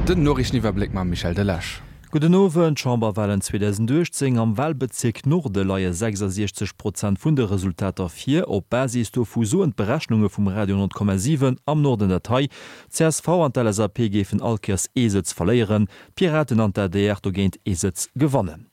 Den Noriichteniwwerbléck mam Michel Delage. Gudden Owend. Chamberwahlen 2018, Am Wahlbezierk Norde leie 66 Prozent vun de Resultater vir. Op Basis dovu soen d'Berechnunge vum Radio 10,7 am Norden dat hei, Csv an d'LSAP géifen all Kéiers ee Sëtz verléieren, d'Piraten an d'ADR dogéint ee Sëtz gewannen.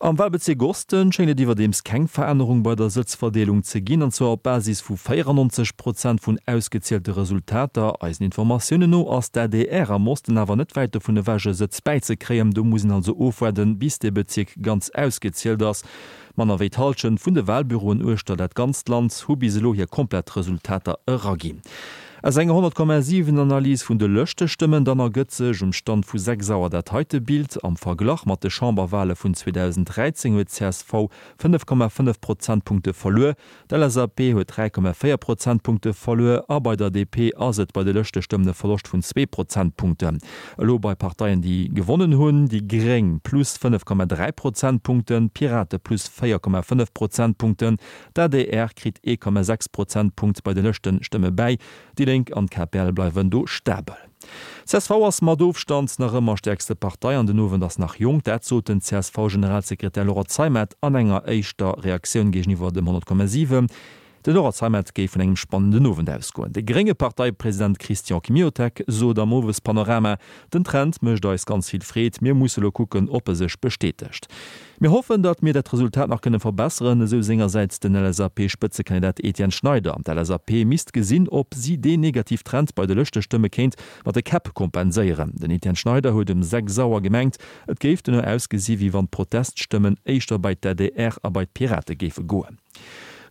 Am Wahlbezierk Osten schéngt et iwwerdeems keng Verännerung bei der Sëtzverdeelung ze ginn, an zwar op Basis vu 94 Prozent vun ausgezielte Resultater. Eisen Informatiounen no ass d'ADR am Osten awer net wäit dovun ewech e Sëtz bäizekréien. Do muss een also ofwaarden, bis dee Bezierk ganz ausgezielt ass. Manner wéi d'Hallschent vun de Wahlbüroen uechter dat ganzt Land hu bis elo hir komplett Resultater eraginn. Aus enger 100,7 Analys vun de Lëschtestëmmen dann ergëtt sech um Stand vu 6 Auer dat heite Bild, Am Verglach mat de Chamberwale vun 2013 huet csv 5,5 Prozentpunkte verluer, d'LSAP huet 3,4 Prozentpunkte verluer a bei der DP ass et bei de Lëschtestëmmen e Verloscht vun zwee Prozentpunkten. Elo bei Parteien déi gewonnen hunn, déi gréng plus 5,3 Prozentpunkten, d'Pirate plus 4,5 Prozentpunkten, D'adr kritt 1,6 Prozentpunkt bei de Lëschtestëmme bäi, déi Lénk an d'KPL bleiwen do stabel. Csv ass mat Ofstand nach ëmmer stäerkste Partei an den Owend ass nach jonk. Dat sot den CSV-Generalsekretär Laurent Zeimet an enger éischter Reaktioun géigeniwwer dem 100,7. De Laurent Zeimet géif vun engem spannenden Owend ausgoen. De grénge Parteipresident Christian Kmiotek sot am Owespanorama, Den Trend mécht eis ganz vill Freed, mir musse lo kucken, ob e sech bestätegt. Mir hoffen, datt mir dat Resultat nach kënne verbesseren, esou sengersäits den LSAP-Spëtzekandidat Etienne Schneider. D'LSAP misst gesinn, ob si deen negativ Trend bei de Lëschtestëmme kéint mat de Käpp kompenséieren. Den Etienne Schneider huet um 6 Auer gemengt, et géif dono ausgesi wéi wann d'Proteststëmmen éischter bei d'ADR a bei d'Pirate géife goen.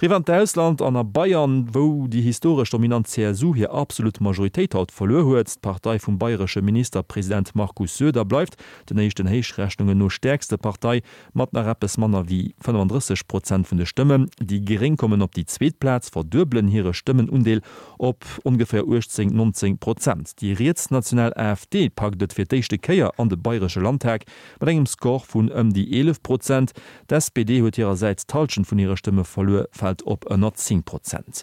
Riwwer an d'Ausland an a Bayern, wou déi historesch dominant CSU hir absolut Majoritéit haut verluer huet. D'Partei vum bayresche Ministerpresident Markus Söder bleift den éischten Héichrechnungen no stäerkste Partei mat nach eppes manner wéi 35 Prozent vun de Stëmmen. Déi Gréng kommen op déi zweet Plaz, verduebelen hire Stëmmenundeel op ongeféier 18, 19 Prozent. Déi rietsnational AfD packt et fir d'éischte Kéier an de bayresche Landtag mat engem Score vun ëm déi 11 Prozent. D'SPD huet hirersäits d'Hallschent vun hire Stëmme verluer, fält op ënner 10 Prozent.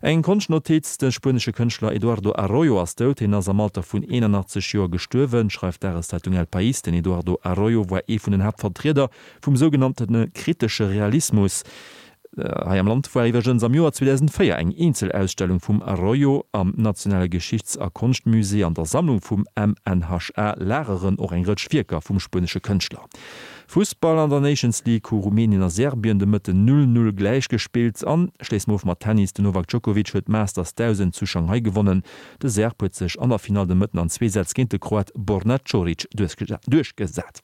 Eng Konschtnotiz, De spuenesche Kënschtler Eduardo Arroyo ass dout. Hien ass am Alter vun 81 Joer gestuerwen, schreift d'Dageszeitung El País. Den Eduardo Arroyo war ee vun den Haaptvertrieder vum sougenannte kritesche Realismus. Hei am Land war iwwregens am Joer 2004 eng Eenzelausstellung vum Arroyo am Nationale Geschichts a Konschtmusée. An der Sammlung vum MNHA lageren och eng Rëtsch Wierker vum spuenesche Kënschtler. Fussball, An der Nations League hu Rumänien a Serbien de Mëtten 0, 0 gläich gespillt. An schléisse mer of mat Tennis, Den Novak Djokovic huet d'Masters 1000 zu Shanghai gewonnen. De Serb huet sech an der Finall de Mëtten an zwee Sätz géint de Kroat Borna Coric duerchgesat.